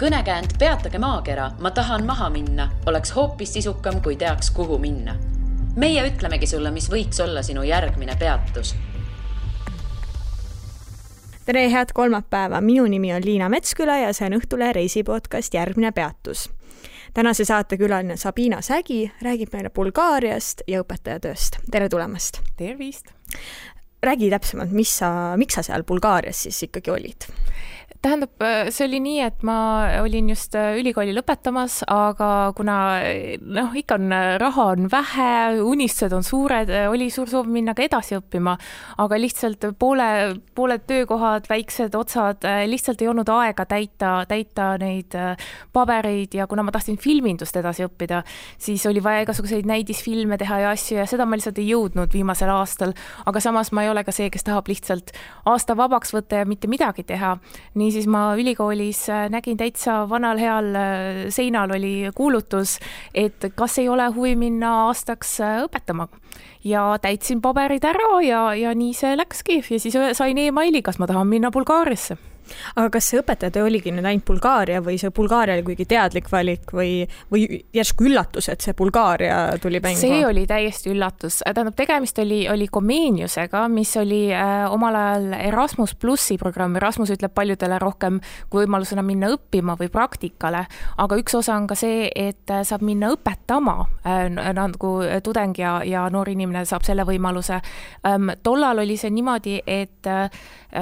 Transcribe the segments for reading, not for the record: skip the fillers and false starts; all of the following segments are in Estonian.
Kõnekäänd Peatage maakera, ma tahan maha minna, oleks hoopis sisukam, kui teaks, kuhu minna. Meie ütlemegi sulle, mis võiks olla sinu järgmine peatus. Tere, head kolmapäeva. Minu nimi on Liina Metsküla ja see on Õhtule reisipodcast Järgmine peatus. Tänase saate külaline Sabina Sägi räägib meile Bulgaariast ja õpetajatööst. Tere tulemast! Tervist! Räägi täpsemalt, miks sa seal Bulgaarias siis ikkagi olid? Tähendab, see oli nii, et ma olin just ülikooli lõpetamas, aga kuna ikka raha on vähe, unistused on suured, oli suur soov minna ka edasi õppima, aga lihtsalt pooled töökohad, väiksed otsad, lihtsalt ei olnud aega täita neid pabereid ja kuna ma tahtsin filmindust edasi õppida, siis oli vaja igasuguseid näidisfilme teha ja asju ja seda ma lihtsalt ei jõudnud viimasel aastal, aga samas ma ei ole ka see, kes tahab lihtsalt aasta vabaks võtta ja mitte midagi teha. Nii siis ma ülikoolis nägin täitsa vanal heal seinal oli kuulutus, et kas ei ole huvi minna aastaks õpetama. Ja täitsin paberid ära ja nii see läkski. Ja siis sain e-maili, kas ma tahan minna Bulgaariasse. Aga kas see õpetaja oligi nüüd ainult Bulgaaria või see Bulgaaria oli kuigi teadlik valik või järsku üllatus, et see Bulgaaria tuli mängu? See oli täiesti üllatus. Tähendab, tegemist oli Comeniusega, mis oli omal ajal Erasmus Plussi programm. Erasmus ütleb paljudele rohkem kui võimalusena minna õppima või praktikale, aga üks osa on ka see, et saab minna õpetama nagu tudeng ja noor inimene saab selle võimaluse. Tollal oli see niimoodi, et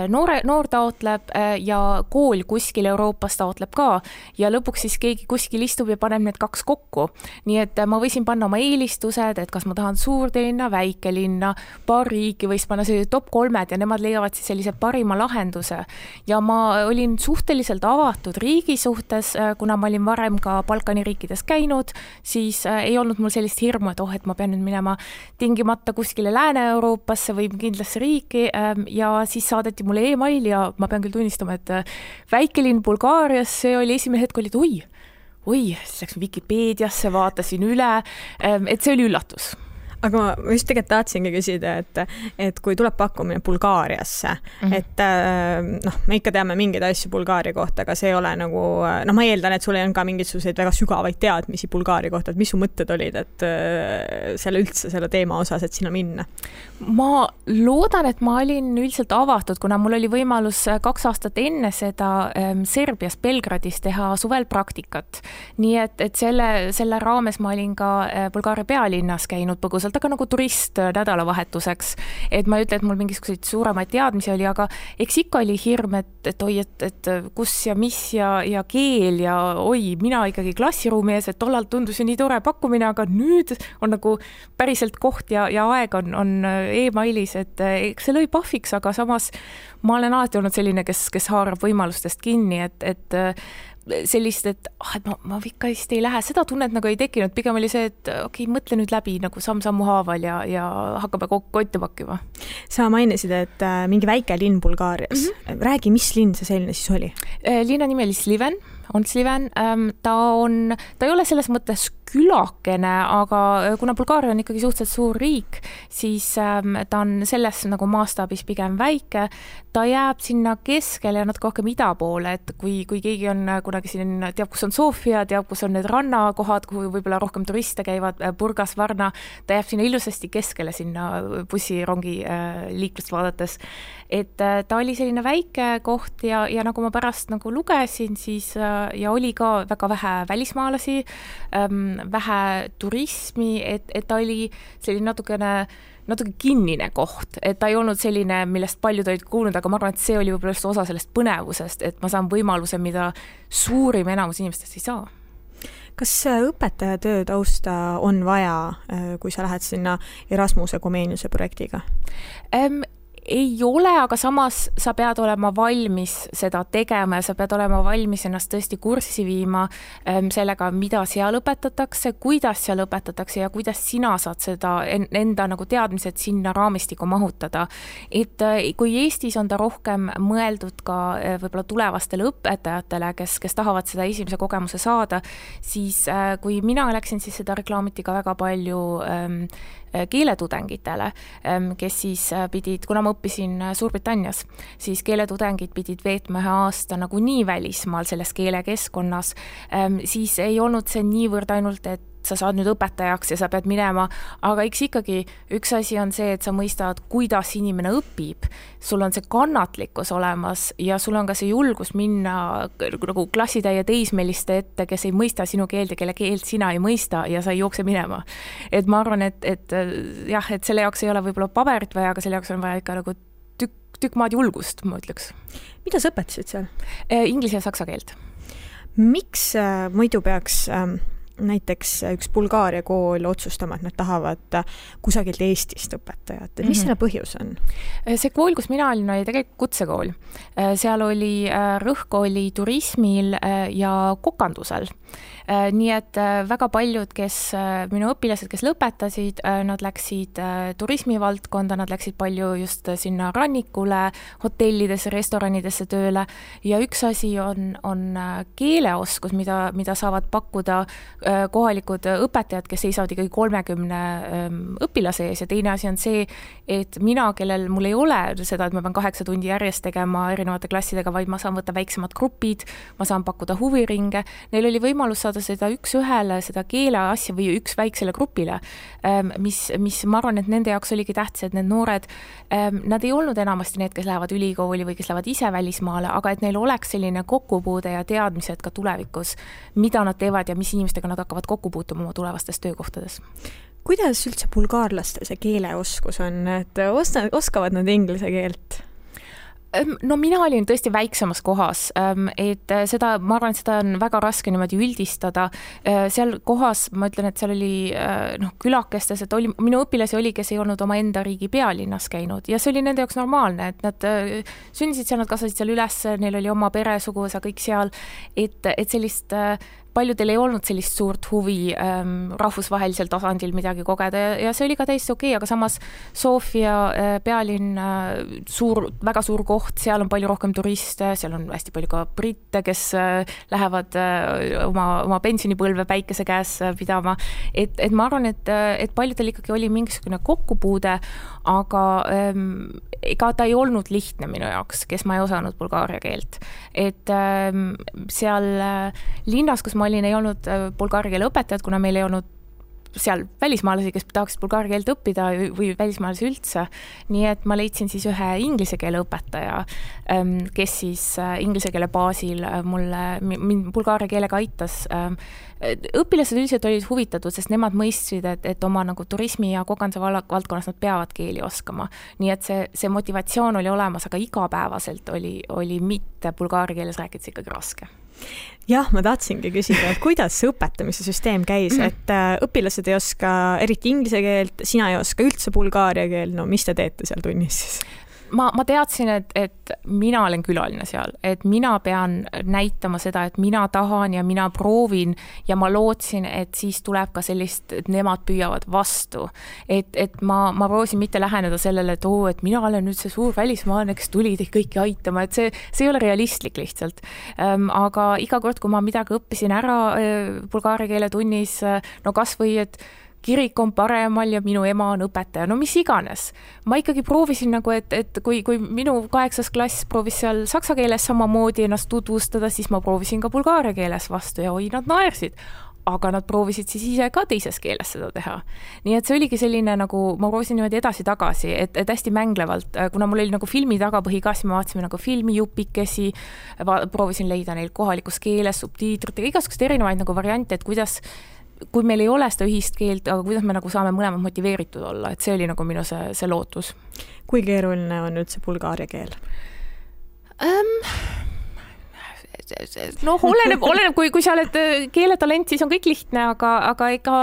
noor taotleb ja kool kuskil Euroopas taotleb ka ja lõpuks siis keegi kuskil istub ja paneb need kaks kokku. Nii et ma võisin panna oma eelistused, et kas ma tahan suurlinna, väikelinna, paar riiki võis panna sellised top 3 ja nemad leiavad siis sellise parima lahenduse. Ja ma olin suhteliselt avatud riigi suhtes, kuna ma olin varem ka Balkani riikides käinud, siis ei olnud mul sellist hirmu, et ma pean nüüd minema tingimata kuskile Lääne-Euroopasse või kindlasse riiki ja siis saadeti mulle e-mail ja ma pean küll tunnistama, et väikelinn Bulgaarias, see oli esimene hetk, oli, et siis läks Wikipeediasse, vaatasin üle, et see oli üllatus. Aga ma just tegelikult tahtsingi küsida, et kui tuleb pakkumine Bulgaariasse, et me ikka teame mingeid asju Bulgaaria kohta, aga see ei ole nagu, ma eeldan, et sul on ka mingisuguseid väga sügavaid teadmisi Bulgaaria kohta, et mis su mõtted olid, et selle teema osas, et sinna minna? Ma loodan, et ma olin üldiselt avatud, kuna mul oli võimalus 2 aastat enne seda Serbias Belgradis teha suvel praktikat. Nii et selle raames ma olin ka Bulgaaria pealinnas käinud põgusalt, aga nagu turist nädalavahetuseks, et ma ei ütle, et mul mingisuguseid suuremaid teadmisi oli, aga eks ikka oli hirm, et kus ja mis ja keel ja mina ikkagi klassiruumi ees, et tollal tundus ju nii tore pakkumine, aga nüüd on nagu päriselt koht ja aeg on e-mailis, et see lõi pahviks, aga samas ma olen alati olnud selline, kes haarab võimalustest kinni, et sellist, et ma ikka vist ei lähe, seda tunnet nagu ei tekkinud, pigem oli see, et mõtle nüüd läbi nagu samm-sammu haaval ja hakkame kotti pakkima. Sa mainisid, et mingi väike linn Bulgaarias. Räägi, mis linn see selline siis oli? Linna nimi oli Sliven. Ta ei ole selles mõttes külakene, aga kuna Bulgaaria on ikkagi suhteliselt suur riik, siis ta on selles nagu maastaabis pigem väike. Ta jääb sinna keskele ja natuke rohkem ida poole, et kui keegi on kunagi siin, teab, kus on Sofia, teab, kus on need rannakohad, kuhu võib-olla rohkem turiste käivad, Burgas, Varna, ta jääb sinna ilusasti keskele sinna bussirongi liiklust vaadates. Et ta oli selline väike koht ja nagu ma pärast nagu lugesin, siis ja oli ka väga vähe välismaalasi, vähe turismi, et ta oli selline natuke kinnine koht, et ta ei olnud selline, millest paljud olid kuulnud, aga ma arvan, et see oli võib-olla just osa sellest põnevusest, et ma saan võimaluse, mida suurim enamus inimestest ei saa. Kas õpetajatöö tausta on vaja, kui sa lähed sinna Erasmuse Comeniuse projektiga? Ei ole, aga samas sa pead olema valmis seda tegema ja sa pead olema valmis ennast tõesti kurssi viima sellega, mida seal õpetatakse, kuidas seal õpetatakse ja kuidas sina saad seda enda nagu teadmised sinna raamistikku mahutada. Et kui Eestis on ta rohkem mõeldud ka võib-olla tulevastele õpetajatele, kes tahavad seda esimese kogemuse saada, siis kui mina läksin, siis seda reklaamiti ka väga palju keeletudengitele, kes siis pidid, kuna ma õppisin Suurbritannias, siis keeletudengid pidid veetma 1 aasta nagu nii välismaal selles keelekeskkonnas, siis ei olnud see niivõrd ainult, et sa saad nüüd õpetajaks ja sa pead minema, aga eks ikkagi üks asi on see, et sa mõistad, kuidas inimene õpib, sul on see kannatlikkus olemas ja sul on ka see julgus minna nagu klassitäie teismeliste ette, kes ei mõista sinu keelt ja kelle keelt sina ei mõista ja sa ei jookse minema. Et ma arvan, et jah, et selle jaoks ei ole võib-olla paberit vaja, aga selle jaoks on vaja ikka nagu tükk maad julgust, ma ütleks. Mida sa õpetasid seal? Inglise ja saksa keelt. Miks muidu peaks näiteks üks Bulgaaria kool otsustama, et nad tahavad kusagilt Eestist õpetajat. Mis selle põhjus on? See kool, kus mina olin, oli tegelikult kutsekool. Seal oli rõhk oli turismil ja kokandusel. Nii et väga paljud, minu õpilased, kes lõpetasid, nad läksid turismivaldkonda, nad läksid palju just sinna rannikule, hotellidesse, restoranidesse tööle ja üks asi on keeleoskus, mida saavad pakkuda kohalikud õpetajad, kes seisavad ikkagi 30 õpilase ees ja teine asi on see, et mina, kellel mul ei ole seda, et ma pean 8 tundi järjest tegema erinevate klassidega, vaid ma saan võtta väiksemad grupid, ma saan pakkuda huviringe, neil oli võimalus saada seda üks ühele, seda keele asja või üks väiksele grupile, mis ma arvan, et nende jaoks oligi tähtis, et need noored, nad ei olnud enamasti need, kes lähevad ülikooli või kes lähevad ise välismaale, aga et neil oleks selline kokkupuude ja teadmised ka tulevikus, mida nad teevad ja mis inimestega nad hakkavad kokku puutuma oma tulevastes töökohtades. Kuidas üldse bulgaarlastel see keeleoskus on, et oskavad nad inglise keelt? No mina olin tõesti väiksemas kohas, et seda, ma arvan, et seda on väga raske niimoodi üldistada. Seal kohas, ma ütlen, et seal oli külakestes, et minu õpilasi oli, kes ei olnud oma enda riigi pealinnas käinud ja see oli nende jaoks normaalne, et nad sündisid seal, nad kasvasid seal üles, neil oli oma pere, suguvõsa, kõik seal, et sellist paljudel ei olnud sellist suurt huvi rahvusvahelisel tasandil midagi kogeda ja see oli ka täiesti okei, aga samas Sofia pealinn, väga suur koht, seal on palju rohkem turiste, seal on hästi palju ka britte, kes lähevad oma pensionipõlve päikese käes pidama, et ma arvan, et paljudel ikkagi oli mingisugune kokkupuude, aga ega ta ei olnud lihtne minu jaoks, kes ma ei osanud bulgaaria keelt. Et seal linnas, kus ma olin, ei olnud bulgaaria keele õpetajad, kuna meil ei olnud seal välismaalasi, kes tahaksid bulgaaria keelt õppida või välismaalasi üldse. Nii et ma leidsin siis ühe inglise keele õpetaja, kes siis inglise keele baasil mind bulgaaria keelega aitas. Õpilased üldiselt olid huvitatud, sest nemad mõistsid, et oma nagu turismi ja kokanduse valdkonnas nad peavad keeli oskama. Nii et see motivatsioon oli olemas, aga igapäevaselt oli mitte bulgaaria keeles rääkides ikkagi raske. Jah, ma tahtsingi küsida, et kuidas see õpetamise süsteem käis, et õpilased ei oska eriti inglise keelt, sina ei oska üldse bulgaaria keel, no mis te teete seal tunnis siis? Ma teadsin, et mina olen külaline seal, et mina pean näitama seda, et mina tahan ja mina proovin ja ma lootsin, et siis tuleb ka sellist, et nemad püüavad vastu. Et ma proovisin mitte läheneda sellele, et mina olen nüüd see suur välismaalane, kes tuli teid kõiki aitama, et see ei ole realistlik lihtsalt. Aga iga kord, kui ma midagi õppisin ära bulgaaria keele tunnis, no kas või, et kirik on paremal ja minu ema on õpetaja, no mis iganes. Ma ikkagi proovisin nagu, et kui minu 8. klass proovis seal saksa keeles samamoodi ennast tutvustada, siis ma proovisin ka bulgaaria keeles vastu ja nad naersid. Aga nad proovisid siis ise ka teises keeles seda teha. Nii et see oligi selline nagu, ma proovisin niimoodi edasi-tagasi, et hästi mänglevalt, kuna mul oli nagu filmi tagapõhi ka, siis me vaatasime nagu filmijupikesi, proovisin leida neil kohalikus keeles, subtiitritega, igasugust erinevaid nagu variante, et kui meil ei ole seda ühist keelt, aga kuidas me nagu saame mõlemad motiveeritud olla, et see oli nagu minu see lootus. Kui keeruline on üldse bulgaaria keel? No oleneb, kui sa oled keeletalent, siis on kõik lihtne, aga ega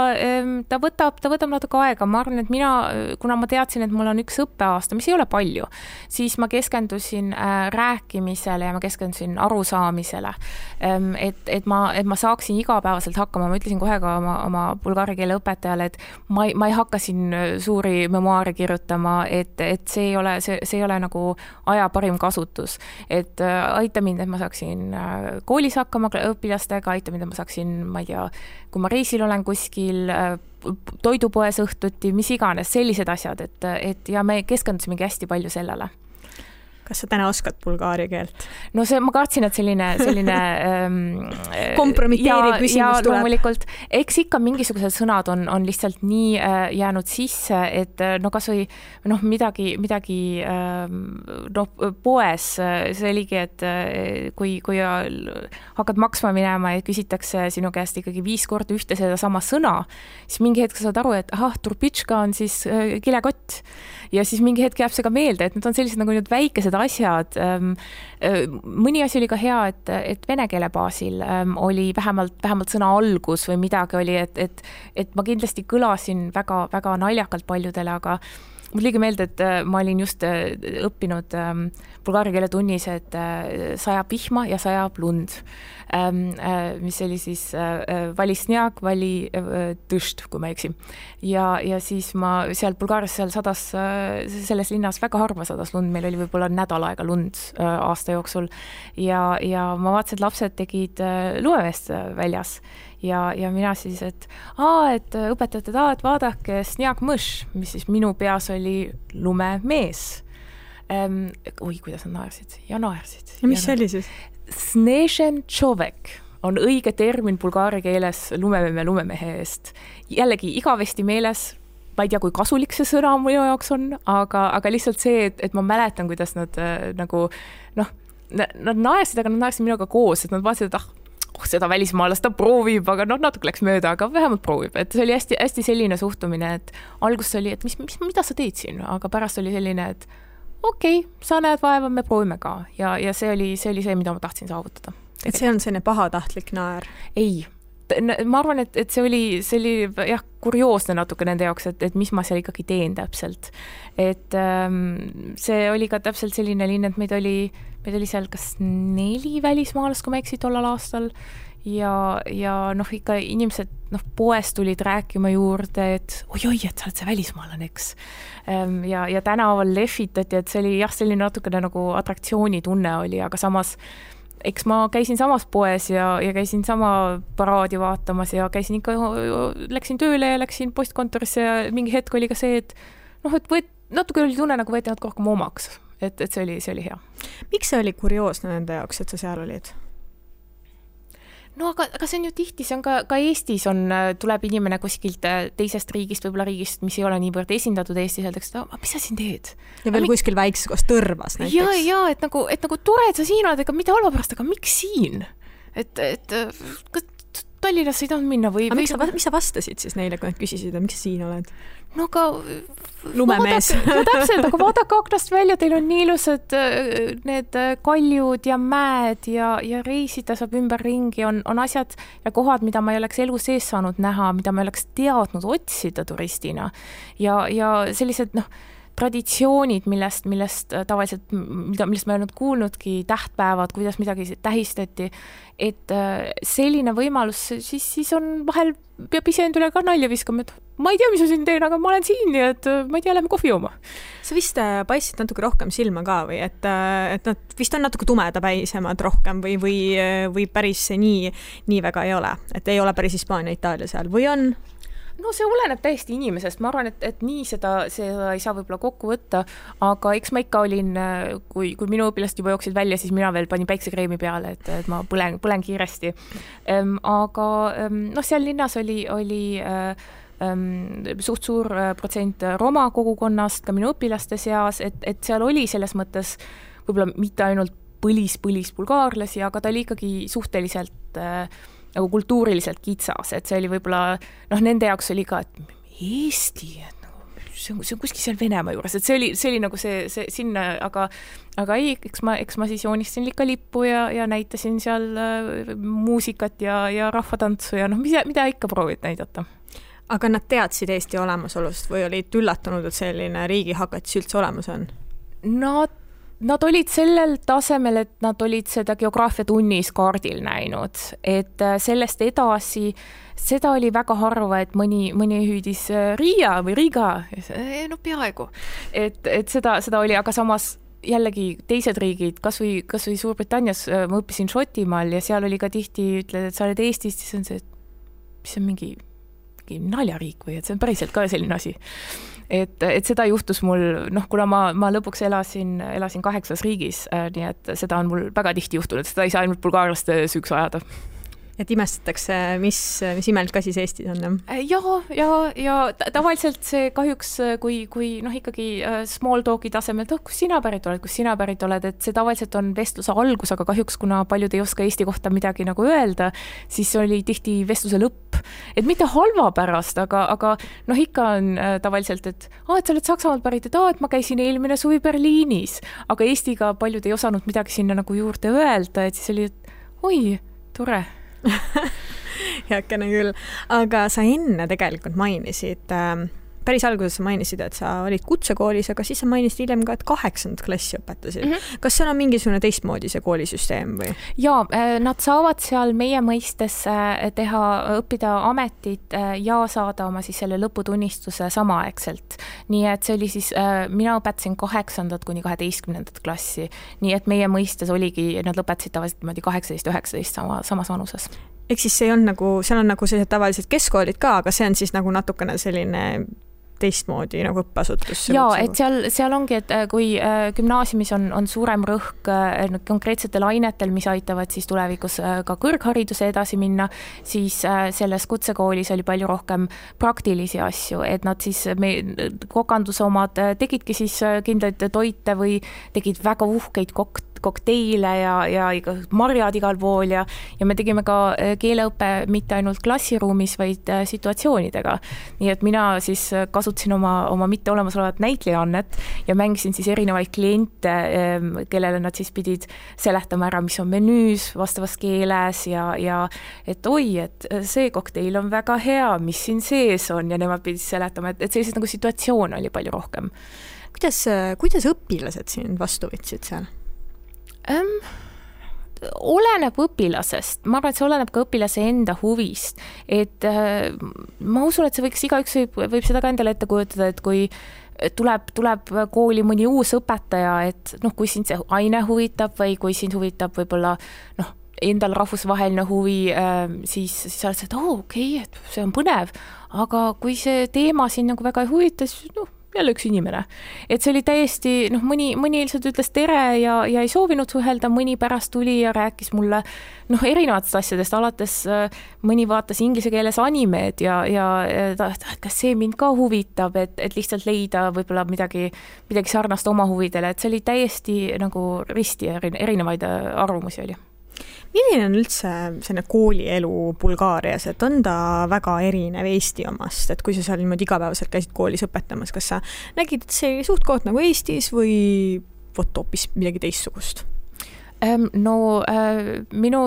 ta võtab natuke aega. Ma arvan, et kuna ma teadsin, et mul on üks õppeaasta, mis ei ole palju, siis ma keskendusin rääkimisele ja ma keskendusin arusaamisele, et ma saaksin igapäevaselt hakkama. Ma ütlesin kohe ka oma bulgaaria keele õpetajale, et ma ei hakka siin suuri memoaare kirjutama, et see ei ole nagu aja parim kasutus, et aita mind, et ma saaksin koolis hakkama õpilastega, aita, mida ma saaksin, ma ei tea, kui ma reisil olen kuskil, toidupoes õhtuti, mis iganes, sellised asjad, et ja me keskendusimegi hästi palju sellele. Kas sa täna oskad bulgaari keelt? No ma kartsin, et selline kompromiteeriv küsimus tuleb. Loomulikult, eks ikka mingisugused sõnad on lihtsalt nii jäänud sisse, et no kas või midagi poes, see oligi, et kui hakkad maksma minema ja küsitakse sinu käest ikkagi 5 korda ühte seda sama sõna, siis mingi hetk saad aru, et turbitška on siis kilekott ja siis mingi hetk jääb see ka meelde, et need on sellised nagu need väikesed asjad. Mõni asi oli ka hea, et vene keele baasil oli vähemalt sõna algus või midagi oli, et ma kindlasti kõlasin väga, väga naljakalt paljudele, aga mul liigi meelde, et ma olin just õppinud bulgaari keele tunnis, et sajab vihma ja sajab lund, mis oli siis vali snjag, vali tõšt, kui ma eksin. Ja siis ma seal Bulgaarias sadas, selles linnas väga harva sadas lund, meil oli võib-olla nädal aega lund aasta jooksul ja ma vaatasin, et lapsed tegid lumemeest väljas. Ja mina siis, et õpetajad, et vaadake snjag mõš, mis siis minu peas oli lumemees. Kuidas nad naersid ja naersid. Ja mis see oli siis? Snežen čovek on õige termin bulgaari keeles lumemehe eest. Jällegi igavesti meeles, ma ei tea, kui kasulik see sõna minu jaoks on, aga lihtsalt see, et ma mäletan, kuidas nad nad naersid, aga nad naersid minuga koos, et nad vaatasid, et seda välismaalast ta proovib, aga natuke läks mööda, aga vähemalt proovib. Et see oli hästi, hästi selline suhtumine, et alguses oli, et mida sa teed siin, aga pärast oli selline, et okei, sa näed vaeva, me proovime ka. Ja see oli see, mida ma tahtsin saavutada. Et see on selline pahatahtlik naer? Ei. Ma arvan, et see oli jah, kurioosne natuke nende jaoks, et mis ma seal ikkagi teen täpselt. Et see oli ka täpselt selline linn, et meid oli seal kas 4 välismaalast, kui ma eksin tollal aastal ja ikka inimesed poes tulid rääkima juurde, et oi, et sa oled see välismaalane, eks. Ja tänaval lehvitati, et see oli jah, selline natukene nagu atraktsiooni tunne oli, aga samas eks ma käisin samas poes ja käisin sama paraadi vaatamas ja käisin ikka, läksin tööle ja läksin postkontorisse ja mingi hetk oli ka see, et natuke oli tunne, nagu võeti natuke rohkem omaks. Et see oli hea. Miks see oli kurioosne nende jaoks, et sa seal olid? No aga see on ju tihti, see on ka Eestis tuleb inimene kuskilt teisest riigist, võib-olla riigist, mis ei ole niivõrd esindatud Eestis, öeldakse, et mis sa siin teed? Ja veel kuskil väikses koos Tõrvas näiteks. Ja, et nagu tore, et sa siin oled, ega mitte halva pärast, aga miks siin? Et Tallinnas ei tahtnud minna või... Miks sa vastasid siis neile, kui nad küsisid, miks sa siin oled? No aga... Lumemees. Täpselt, aga vaadake aknast välja, teil on nii ilusad need kaljud ja mäed ja reisida saab ümber ringi, on asjad ja kohad, mida ma ei oleks elu sees saanud näha, mida ma ei oleks teadnud otsida turistina. Ja sellised, traditsioonid, millest tavaliselt, millest ma ei olnud kuulnudki, tähtpäevad, kuidas midagi tähistati, et selline võimalus, siis on vahel peab ise endale ka nalja viskama, et ma ei tea, mis ma siin teen, aga ma olen siin ja et ma ei tea, lähme kohvi jooma. Sa vist paistsid natuke rohkem silma ka või, et nad vist on natuke tumedapäisemad rohkem või päris nii väga ei ole, et ei ole päris Hispaania, Itaalia seal või on? No see oleneb täiesti inimesest, ma arvan, et nii seda ei saa võib-olla kokku võtta, aga eks ma ikka olin, kui minu õpilast juba jooksid välja, siis mina veel panin päiksekreemi peale, et ma põlen kiiresti. Aga seal linnas oli suht suur protsent Roma kogukonnast ka minu õpilaste seas, et seal oli selles mõttes võib-olla mitte ainult põlis bulgaarlasi, aga ta oli ikkagi suhteliselt nagu kultuuriliselt kitsas, et see oli võib-olla, nende jaoks oli ka, et Eesti, et see on kuskil seal Venemaa juures, et see oli nagu see sinna, aga ei, eks ma siis joonistasin ikka lippu ja näitasin seal muusikat ja rahvatantsu ja mida ikka proovid näidata. Aga nad teadsid Eesti olemasolust või olid üllatunud, et selline riigihakatis üldse olemas on? Nad olid sellel tasemel, et nad olid seda geograafiatunnis kaardil näinud, et sellest edasi, seda oli väga harva, et mõni hüüdis Riia või Riga, peaaegu. Et seda oli, aga samas jällegi teised riigid, kas või Suurbritannias ma õppisin Šotimaal ja seal oli ka tihti, ütled, et sa oled Eestist, siis on see, et mis on mingi naljariik või et see on päriselt ka selline asi. Et seda juhtus mul, kuna ma lõpuks elasin 8 riigis, nii et seda on mul väga tihti juhtunud, seda ei saa ainult bulgaarlaste süüks ajada. Et imestatakse, mis imelikult ka siis Eestis on? Ja tavaliselt see kahjuks, kui ikkagi small talki tasemel, kus sina pärit oled, et see tavaliselt on vestluse algus, aga kahjuks, kuna paljud ei oska Eesti kohta midagi nagu öelda, siis oli tihti vestluse lõpp. Et mitte halva pärast, aga ikka on tavaliselt, et sa oled Saksamaalt pärit, et ma käisin eelmine suvi Berliinis, aga Eestiga paljud ei osanud midagi sinna nagu juurde öelda, et siis oli, et oi, tore. Heakene küll, aga sa enne tegelikult mainisid, päris alguses sa mainisid, et sa olid kutsekoolis, aga siis sa mainisid hiljem ka, et 8. klassi õpetasid. Kas seal on mingisugune teistmoodi see koolisüsteem või? Jaa, nad saavad seal meie mõistes õppida ametit ja saada oma siis selle lõputunnistuse samaaegselt. Nii et see oli siis, mina õpetasin 8. kuni 12. klassi, nii et meie mõistes oligi, nad lõpetasid tavaliselt 18-19 samas vanuses. Ehk siis see on nagu, seal on nagu sellised tavalised keskkoolid ka, aga see on siis nagu natukene selline teistmoodi nagu õppeasutus. Jaa, et seal ongi, et kui gümnaasiumis on suurem rõhk konkreetsetel ainetel, mis aitavad siis tulevikus ka kõrghariduse edasi minna, siis selles kutsekoolis oli palju rohkem praktilisi asju, et nad siis kokanduse omad tegidki siis kindlaid toite või tegid väga uhkeid kokteile ja marjad igal pool ja me tegime ka keeleõppe mitte ainult klassiruumis, vaid situatsioonidega. Nii et mina siis kasutasin oma mitte olemasolevat näitlejannet ja mängisin siis erinevaid kliente, kellele nad siis pidid seletama ära, mis on menüüs vastavas keeles ja et oi, et see kokteil on väga hea, mis siin sees on ja nemad pidid seletama, et sellised nagu situatsioon oli palju rohkem. Kuidas õpilased siin vastu võtsid seal? Oleneb õpilasest. Ma arvan, et see oleneb ka õpilase enda huvist. Et ma usun, et see võiks igaüks võib seda ka endale ette kujutada, et kui tuleb kooli mõni uus õpetaja, et kui sind see aine huvitab või kui sind huvitab võib-olla endal rahvusvaheline huvi, siis sa oled see, et okei, et see on põnev, aga kui see teema siin nagu väga ei huvita, siis jälle üks inimene. Et see oli täiesti, mõni lihtsalt ütles tere ja ei soovinud suhelda, mõni pärast tuli ja rääkis mulle erinevatest asjadest, alates mõni vaatas inglise keeles animeed ja kas see mind ka huvitab, et lihtsalt leida võib-olla midagi sarnast oma huvidele, et see oli täiesti nagu risti erinevaid arvamusi oli. Milline on üldse selline koolielu Bulgaarias, et on ta väga erinev Eesti omast, et kui sa seal niimoodi igapäevaselt käisid koolis õpetamas, kas sa nägid, et see suht koht nagu Eestis või hoopis midagi teistsugust? Minu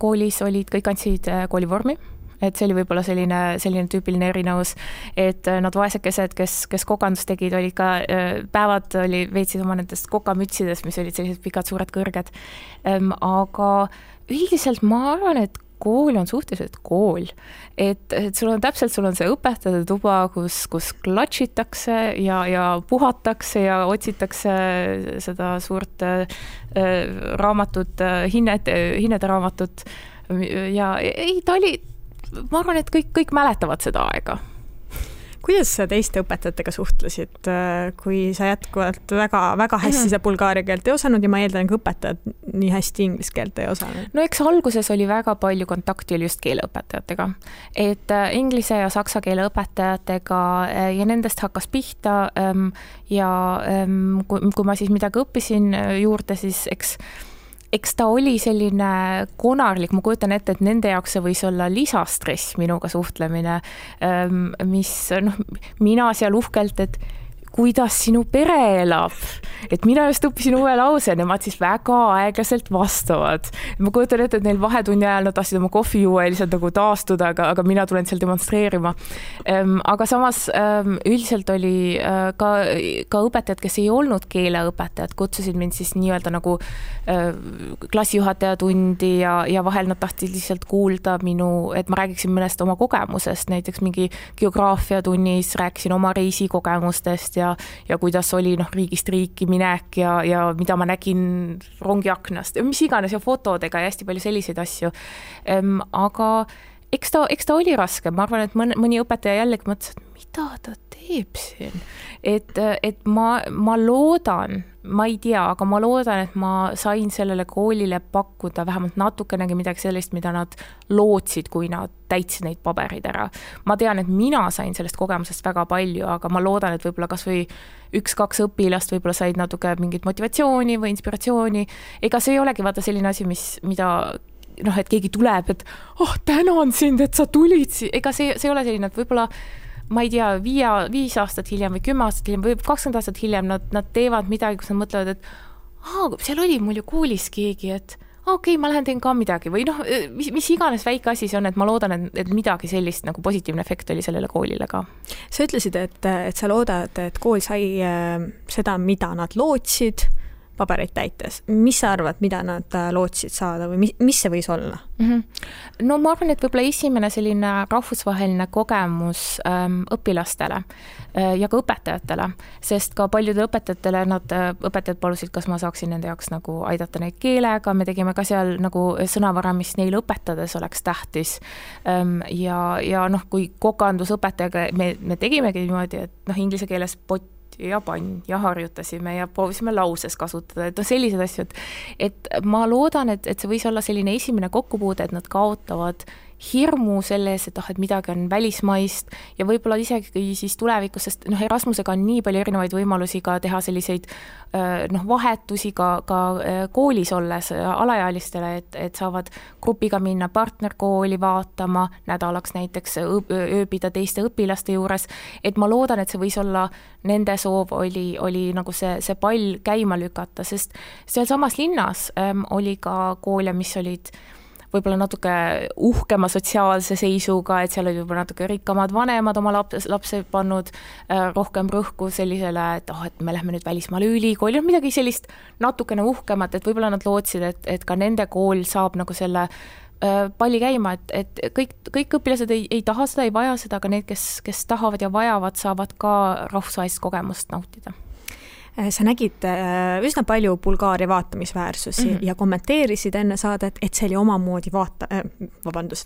koolis kõik andsid koolivormi, et see oli võib-olla selline tüüpiline erinevus, et nad vaesekesed, kes kokandus tegid, olid ka päevad veetsid oma nendest kokamütsidest, mis olid sellised pikad, suured, kõrged. Aga üldiselt ma arvan, et kool on suhteliselt kool. Et sul on see õpetajate tuba, kus klatšitakse ja puhatakse ja otsitakse seda suurt raamatut, hinnede raamatut. Ja ta oli, ma arvan, et kõik mäletavad seda aega. Kuidas sa teiste õpetajatega suhtlesid, kui sa jätkuvalt väga hästi seda bulgaaria keelt ei osanud ja ma eeldan, ka õpetajad nii hästi inglise keelt ei osanud? Eks alguses oli väga palju kontakti oli just keeleõpetajatega. Et inglise ja saksa keele õpetajatega ja nendest hakkas pihta ja kui ma siis midagi õppisin juurde, siis eks ta oli selline konarlik, ma kujutan ette, et nende jaoks see võis olla lisastress minuga suhtlemine, mis mina seal uhkelt, et kuidas sinu pere elab. Et mina just õppisin uue lause, nemad siis väga aeglaselt vastavad. Ma kujutan ette, et neil vahetunni ajal nad tahtsid oma kohvi juua ja lihtsalt nagu taastuda, aga mina tulen seal demonstreerima. Aga samas üldiselt oli ka õpetajad, kes ei olnud keeleõpetajad, kutsusid mind siis nii-öelda nagu klassijuhataja tundi ja vahel nad tahtsid lihtsalt kuulda et ma räägiksin mõnest oma kogemusest, näiteks mingi geograafia tunnis rääkisin oma reisikogemustest ja kuidas oli riigist riiki minek ja mida ma nägin rongiaknast, mis iganes ja fotodega ja hästi palju selliseid asju. Aga eks ta oli raske, ma arvan, et mõni õpetaja jällegi mõtles, et mida ta teeb siin. Et ma loodan, ma ei tea, aga ma loodan, et ma sain sellele koolile pakkuda vähemalt natukenegi midagi sellist, mida nad lootsid, kui nad täitsid neid paberid ära. Ma tean, et mina sain sellest kogemusest väga palju, aga ma loodan, et võib-olla kas või 1-2 õpilast võib-olla said natuke mingit motivatsiooni või inspiratsiooni. Ega see ei olegi vaata selline asi, mida et keegi tuleb, et tänan sind, et sa tulid. Ega see ei ole selline, et võib-olla ma ei tea, 5 aastat hiljem või 10 aastat hiljem või 20 aastat hiljem nad teevad midagi, kus nad mõtlevad, et seal oli mul ju koolis keegi, et okei, ma lähen teen ka midagi või mis iganes väike asi see on, et ma loodan, et midagi sellist nagu positiivne efekt oli sellele koolile ka. Sa ütlesid, et sa loodad, et kool sai seda, mida nad lootsid pabereid täites. Mis sa arvad, mida nad lootsid saada või mis see võis olla? No ma arvan, et võib-olla esimene selline rahvusvaheline kogemus õpilastele ja ka õpetajatele, sest ka paljudele õpetajatele õpetajad palusid, kas ma saaksin nende jaoks nagu aidata neid keelega, me tegime ka seal nagu sõnavara, mis neile õpetades oleks tähtis. Ja kui kokandusõpetajaga me tegimegi niimoodi, et inglise keeles pott ja pann ja harjutasime ja proovisime lauses kasutada, et sellised asju, et ma loodan, et see võis olla selline esimene kokkupuude, et nad kaotavad hirmu selles, et midagi on välismaist ja võib-olla isegi siis tulevikus, sest Erasmusega on nii palju erinevaid võimalusi ka teha selliseid vahetusi ka koolis olles alaealistele, et saavad grupiga minna partnerkooli vaatama, nädalaks näiteks ööbida teiste õpilaste juures, et ma loodan, et see võis olla nende soov oli nagu see pall käima lükata, sest seal samas linnas oli ka koole, mis olid võib-olla natuke uhkema sotsiaalse seisuga, et seal oli võib-olla natuke rikkamad vanemad oma lapse pannud rohkem rõhku sellisele, et me lähme nüüd välismaale ülikooli, midagi sellist natukene uhkemat, et võib-olla nad lootsid, et ka nende kool saab nagu selle palli käima, et kõik õpilased ei taha seda, ei vaja seda, aga need, kes tahavad ja vajavad, saavad ka rahvusvahelist kogemust nautida. Sa nägid üsna palju Bulgaaria vaatamisväärsusi ja kommenteerisid enne saadet, et see oli omamoodi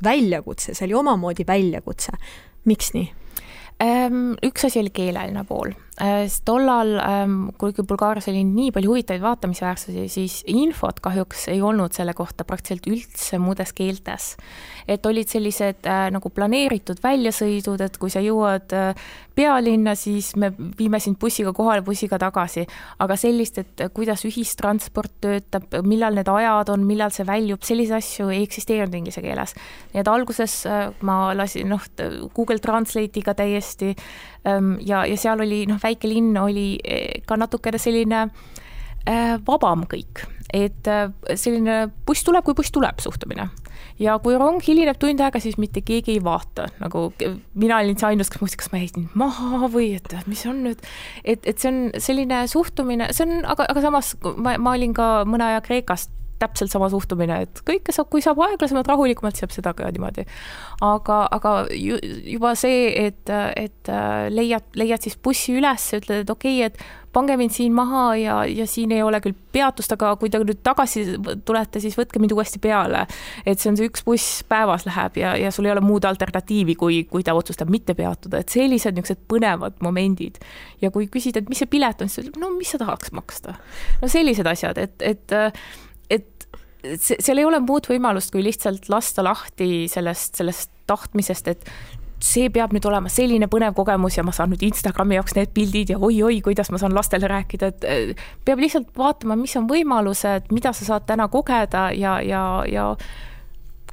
väljakutse, see oli omamoodi väljakutse. Miks nii? Üks asi oli keeleline pool. Tollal, kuigi Bulgaarias oli nii palju huvitavaid vaatamisväärsusi, siis infot kahjuks ei olnud selle kohta praktiliselt üldse muudes keeltes. Et olid sellised nagu planeeritud väljasõidud, et kui sa jõuad pealinna, siis me viime sind bussiga kohale, bussiga tagasi. Aga sellist, et kuidas ühistransport töötab, millal need ajad on, millal see väljub, sellise asju ei eksisteerinud inglise keeles. Nii et alguses ma lasin Google Translate'iga täiesti ja seal oli väike linn oli ka natukene selline vabam kõik, et selline buss tuleb, kui buss tuleb suhtumine. Ja kui rong hilineb tund aega, siis mitte keegi ei vaata. Nagu mina olin see ainus, kas ma jäin maha või et mis on nüüd, et see on selline suhtumine, aga samas ma olin ka mõne aja Kreekast täpselt sama suhtumine, et kõike saab, kui saab aeglasemalt rahulikumalt, saab seda ka niimoodi. Aga juba see, et leiad siis bussi üles ja ütled, et okei, et pange mind siin maha ja siin ei ole küll peatust, aga kui te nüüd tagasi tulete, siis võtke mind uuesti peale. Et see on see üks buss päevas läheb ja sul ei ole muud alternatiivi, kui ta otsustab mitte peatuda. Et sellised niisugused põnevad momendid. Ja kui küsid, et mis see pilet on, siis mis sa tahaks maksta? Sellised asjad, et seal ei ole muud võimalust, kui lihtsalt lasta lahti sellest tahtmisest, et see peab nüüd olema selline põnev kogemus ja ma saan nüüd Instagrami jaoks need pildid ja oi, kuidas ma saan lastele rääkida, et peab lihtsalt vaatama, mis on võimalused, mida sa saad täna kogeda ja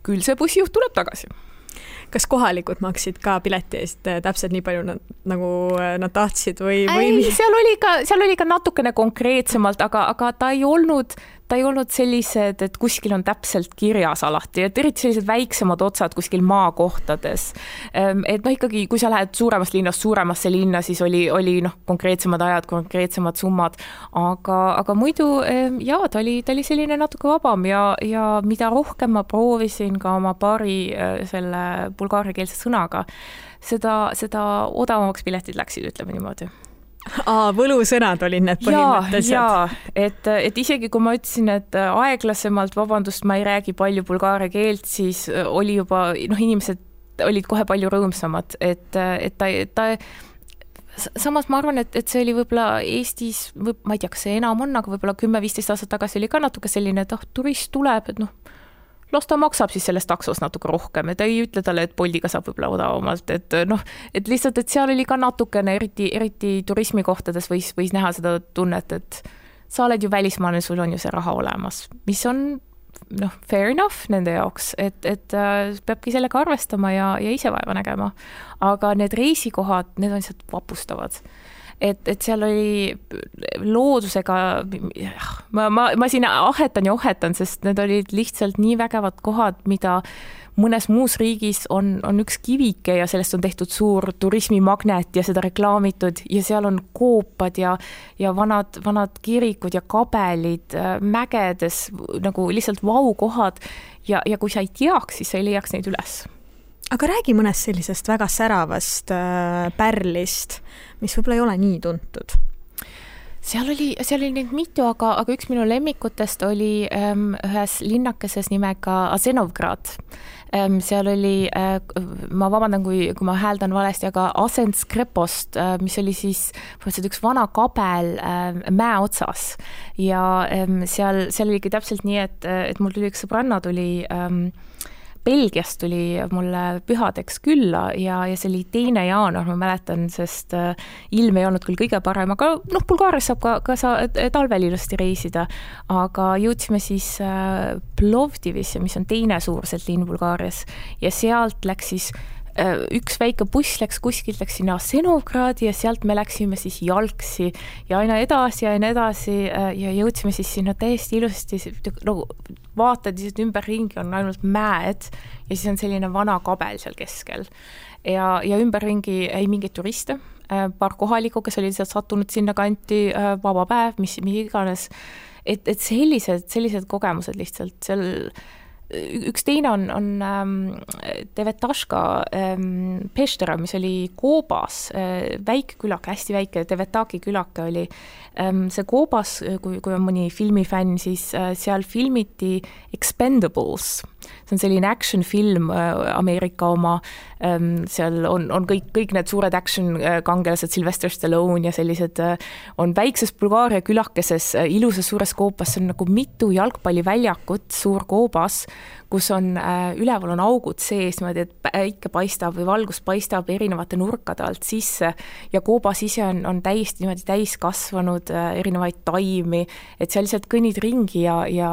küll see bussijuht tuleb tagasi. Kas kohalikud maksid ka pileti eest täpselt nii palju nagu nad tahtsid või? Seal oli ka natukene konkreetsemalt, aga ta ei olnud sellised, et kuskil on täpselt kirjas alati, et eriti sellised väiksemad otsad kuskil maakohtades. Et ikkagi, kui sa lähed suuremast linnast suuremasse linna, siis oli konkreetsemad ajad, konkreetsemad summad, aga muidu ta oli selline natuke vabam ja mida rohkem ma proovisin ka oma paari selle bulgaariakeelse sõnaga, seda odavamaks piletid läksid, ütleme niimoodi. Võlusõnad olid need põhimõtteliselt. Et isegi kui ma ütlesin, et aeglasemalt, vabandust, ma ei räägi palju bulgaaria keelt, siis oli juba, inimesed olid kohe palju rõõmsamad, et ta samas ma arvan, et see oli võib-olla Eestis, ma ei tea, kas see enam on, aga võib-olla 10-15 aastat tagasi oli ka natuke selline, et turist tuleb, et las ta maksab siis selles taksos natuke rohkem, et ei ütle talle, et Boltiga saab võib-olla odavamalt, et lihtsalt, et seal oli ka natukene, eriti turismikohtades võis näha seda tunnet, et sa oled ju välismaalane, sul on ju see raha olemas, mis on fair enough nende jaoks, et peabki sellega arvestama ja ise vaeva nägema. Aga need reisikohad, need on lihtsalt vapustavad. Et seal oli loodusega, ma siin ahetan, sest need olid lihtsalt nii vägevad kohad, mida mõnes muus riigis on üks kivike ja sellest on tehtud suur turismimagnet ja seda reklaamitud ja seal on koopad ja vanad kirikud ja kabelid mägedes nagu lihtsalt vaukohad ja kui sa ei teaks, siis sa ei leiaks neid üles. Aga räägi mõnest sellisest väga säravast pärlist, mis võib-olla ei ole nii tuntud. Seal oli neid mitu, aga üks minu lemmikutest oli ühes linnakeses nimega Asenovgrad. Seal oli, ma vabandan, kui ma hääldan valesti, aga Asenskrepost, mis oli siis üks vana kabel mäe otsas. Ja seal oligi täpselt nii, et mul tuli üks sõbranna tuli Belgiast tuli mulle pühadeks külla ja see oli 2. jaanuar, ma mäletan, sest ilm ei olnud küll kõige parem, aga Bulgaarias saab ka talvel ilusti reisida, aga jõudsime siis Plovdivisse, mis on teine suurselt linn Bulgaarias ja sealt läks siis üks väike buss läks kuskilt, läks sinna Asenovgradi ja sealt me läksime siis jalgsi ja aina edasi ja jõudsime siis sinna täiesti ilusti, vaatad ümberringi on ainult mäed ja siis on selline vana kabel seal keskel ja ümberringi ei mingit turiste, paar kohalikku, kes olid sattunud sinna kanti, vaba päev, mis iganes, et sellised kogemused lihtsalt seal. Üks teine on Devetaška Peštera, mis oli Koobas, väike külake, hästi väike Devetaki külake oli. See Koobas, kui on mõni filmifänn, siis seal filmiti Expendables. See on selline action film, Ameerika oma, seal on kõik need suured action kangelased, Sylvester Stallone ja sellised on väikses Bulgaaria külakeses, ilusas suures Koobas, see on nagu mitu jalgpalliväljakut, suur Koobas, kus on üleval on augud sees, et päike paistab või valgus paistab erinevate nurkade alt sisse ja Koobas ise on täiesti niimoodi täis kasvanud erinevaid taimi, et seal lihtsalt kõnnid ringi ja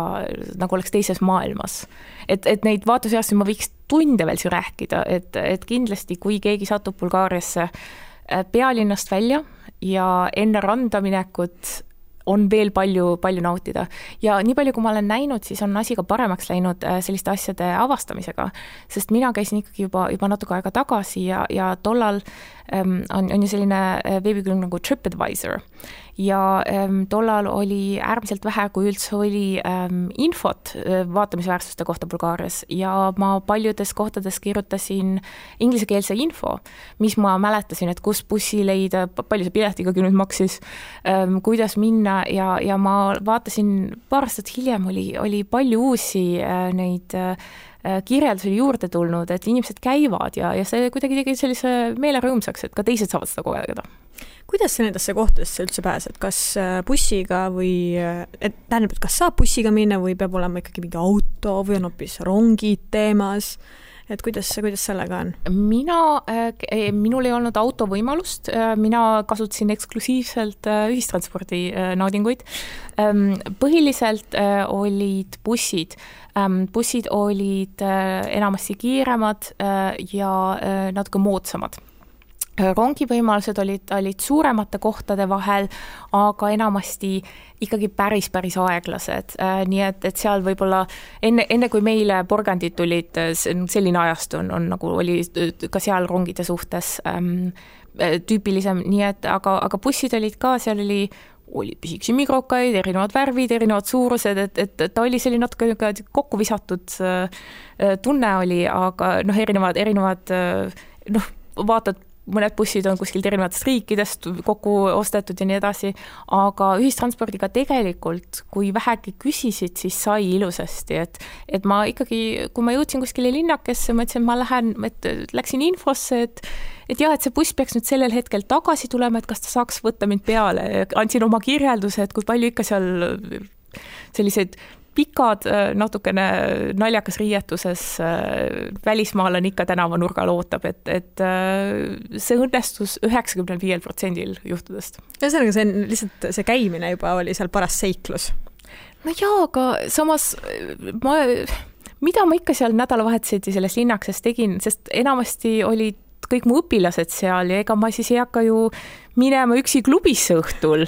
nagu oleks teises maailmas. Et neid vaatuseast ma võiks tunde veel siin rääkida, et kindlasti kui keegi satub Bulgaariasse pealinnast välja ja enne randa minekut on veel palju nautida. Ja nii palju, kui ma olen näinud, siis on asi ka paremaks läinud selliste asjade avastamisega, sest mina käisin ikkagi juba natuke aega tagasi ja tollal on ju selline veebikülg nagu TripAdvisor ja tollal oli äärmiselt vähe, kui üldse oli infot vaatamisväärsuste kohta Bulgaarias ja ma paljudes kohtades kirjutasin inglisekeelse info, mis ma mäletasin, et kus bussi leida, palju see piletigagi nüüd maksis, kuidas minna ja ma vaatasin paar aastat hiljem oli palju uusi neid kirjeldusi juurde tulnud, et inimesed käivad ja see kuidagi tegi sellise meele rõõmsaks, et ka teised saavad seda kogeda. Kuidas sa nendesse kohtadesse üldse pääsed? Kas bussiga või, tähendab, et kas saab bussiga minna või peab olema ikkagi mingi auto või on hoopis rongid teemas? Et kuidas sellega on? Minul ei olnud auto võimalust, mina kasutasin eksklusiivselt ühistranspordi naudinguid. Põhiliselt olid bussid. Bussid olid enamasti kiiremad ja natuke moodsamad. Rongivõimalused olid suuremate kohtade vahel, aga enamasti ikkagi päris aeglased. Nii et seal võib-olla enne kui meile porgandid tulid, selline ajast on nagu oli ka seal rongide suhtes tüüpilisem, nii et aga bussid olid ka, seal oli pisiksi mikrokaid, erinevad värvid, erinevad suurused, et ta oli selline natuke kokku visatud tunne oli, aga erinevad vaatad mõned bussid on kuskilt erinevatest riikidest kokku ostetud ja nii edasi, aga ühistranspordiga tegelikult, kui vähegi küsisid, siis sai ilusasti, et ma ikkagi, kui ma jõudsin kuskile linnakesse, ma ütlesin, et ma läksin infosse, et see buss peaks nüüd sellel hetkel tagasi tulema, et kas ta saaks võtta mind peale. Andsin oma kirjelduse, et kui palju ikka seal sellised pikad, natukene naljakas riietuses välismaalane ikka tänavanurgal ootab, et see õnnestus 95% juhtudest. Ühesõnaga, see on lihtsalt see käimine juba oli seal paras seiklus. No jaa, aga samas mida ma ikka seal nädalavahetuseti selles linnakses tegin, sest enamasti olid kõik mu õpilased seal ja ega ma siis ei hakka ju minema üksi klubisse õhtul.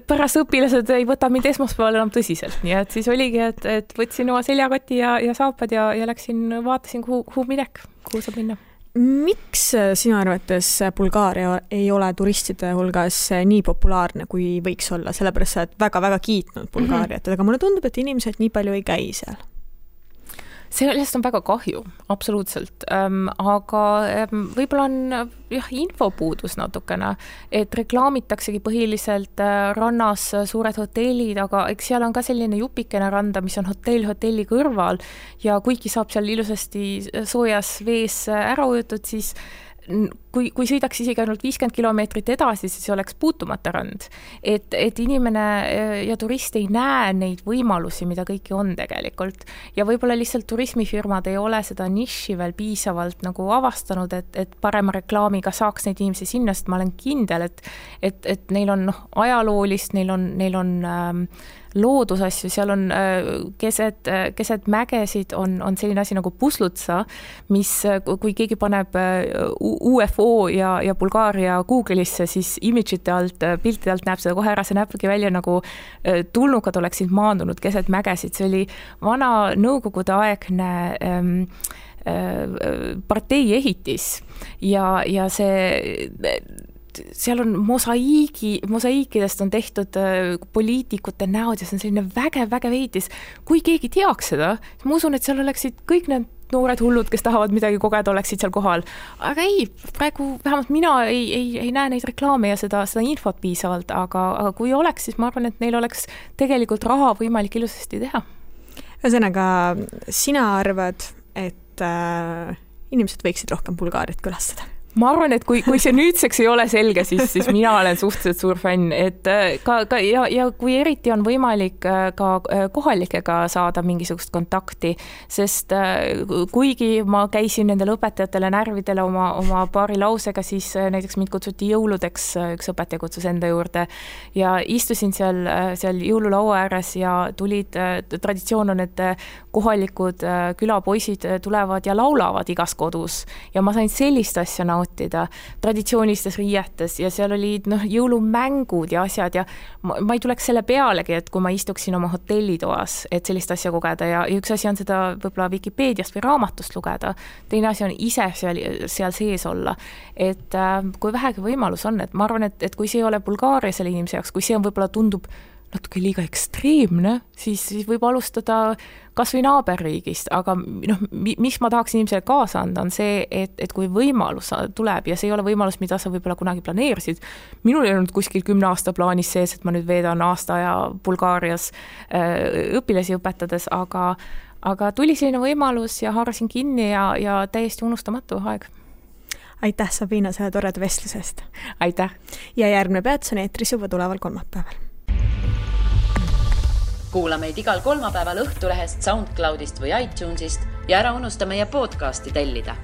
Pärast õpilased ei võta mind esmaspäeval enam tõsiselt, nii et siis oligi, et võtsin oma seljakoti ja saapad ja läksin, vaatasin, kuhu saab minna. Miks sinu arvates Bulgaaria ei ole turistide hulgas nii populaarne, kui võiks olla? Sellepärast sa oled väga-väga kiitnud Bulgaariat, aga mulle tundub, et inimesed nii palju ei käi seal. Sellest on väga kahju, absoluutselt, aga võib-olla on infopuudus natukene, et reklaamitaksegi põhiliselt rannas suured hotellid, aga eks seal on ka selline jupikene randa, mis on hotelli kõrval ja kuigi saab seal ilusasti soojas vees ära ujutud, siis kui sõidaks isegi ainult 50 kilomeetrit edasi, siis oleks puutumata rand. Et inimene ja turist ei näe neid võimalusi, mida kõiki on tegelikult. Ja võib-olla lihtsalt turismifirmad ei ole seda niši veel piisavalt nagu avastanud, et parema reklaamiga saaks neid inimesi sinna, sest ma olen kindel, et neil on ajaloolist, neil on loodusasju, seal on keset mägesid on selline asi nagu Puslutsa, mis kui keegi paneb UFO ja Bulgaaria Google'isse, siis imidžite alt, piltide alt näeb seda kohe ära, see näebki välja nagu tulnukad oleksid maandunud keset mägesid, see oli vana nõukogude aegne partei ehitis ja see seal on mosaiikidest on tehtud poliitikute näod ja see on selline vägev ehitis. Kui keegi teaks seda, siis ma usun, et seal oleksid kõik need noored hullud, kes tahavad midagi kogeda, oleksid seal kohal. Aga ei, praegu vähemalt mina ei näe neid reklaame ja seda infot piisavalt, aga kui oleks, siis ma arvan, et neil oleks tegelikult raha võimalik ilusasti teha. Ühesõnaga, sina arvad, et inimesed võiksid rohkem Bulgaariat külastada? Ma arvan, et kui see nüüdseks ei ole selge, siis mina olen suhteliselt suur fänn, et ja kui eriti on võimalik ka kohalikega saada mingisugust kontakti, sest kuigi ma käisin nendele õpetajatele närvidele oma paari lausega, siis näiteks mind kutsuti jõuludeks, üks õpetaja kutsus enda juurde ja istusin seal jõululaua ääres ja traditsioon on, et kohalikud külapoisid tulevad ja laulavad igas kodus ja ma sain sellist asja nautida traditsioonilistes riietes ja seal olid jõulumängud ja asjad ja ma ei tuleks selle pealegi, et kui ma istuksin oma hotellitoas, et sellist asja kogeda ja üks asi on seda võib-olla Wikipeediast või raamatust lugeda, teine asi on ise seal sees olla, et kui vähegi võimalus on, et ma arvan, et kui see ei ole Bulgaaria selle inimese jaoks, kui see on võib-olla tundub natuke liiga ekstreemne, siis võib alustada kas või naaberriigist, aga mis ma tahaks inimesele kaasa anda, on see, et kui võimalus tuleb ja see ei ole võimalus, mida sa võib-olla kunagi planeerisid. Minul ei olnud kuskil 10 aasta plaanis sees, et ma nüüd veedan aasta ja Bulgaarias õpilasi õpetades, aga tuli selline võimalus ja haarasin kinni ja täiesti unustamatu aeg. Aitäh, Sabina, selle toreda vestlusest. Aitäh. Ja järgmine peats on eetris juba tuleval kolmapäeval. Kuula meid igal kolmapäeval Õhtulehest, SoundCloudist või iTunesist ja ära unusta meie podcasti tellida.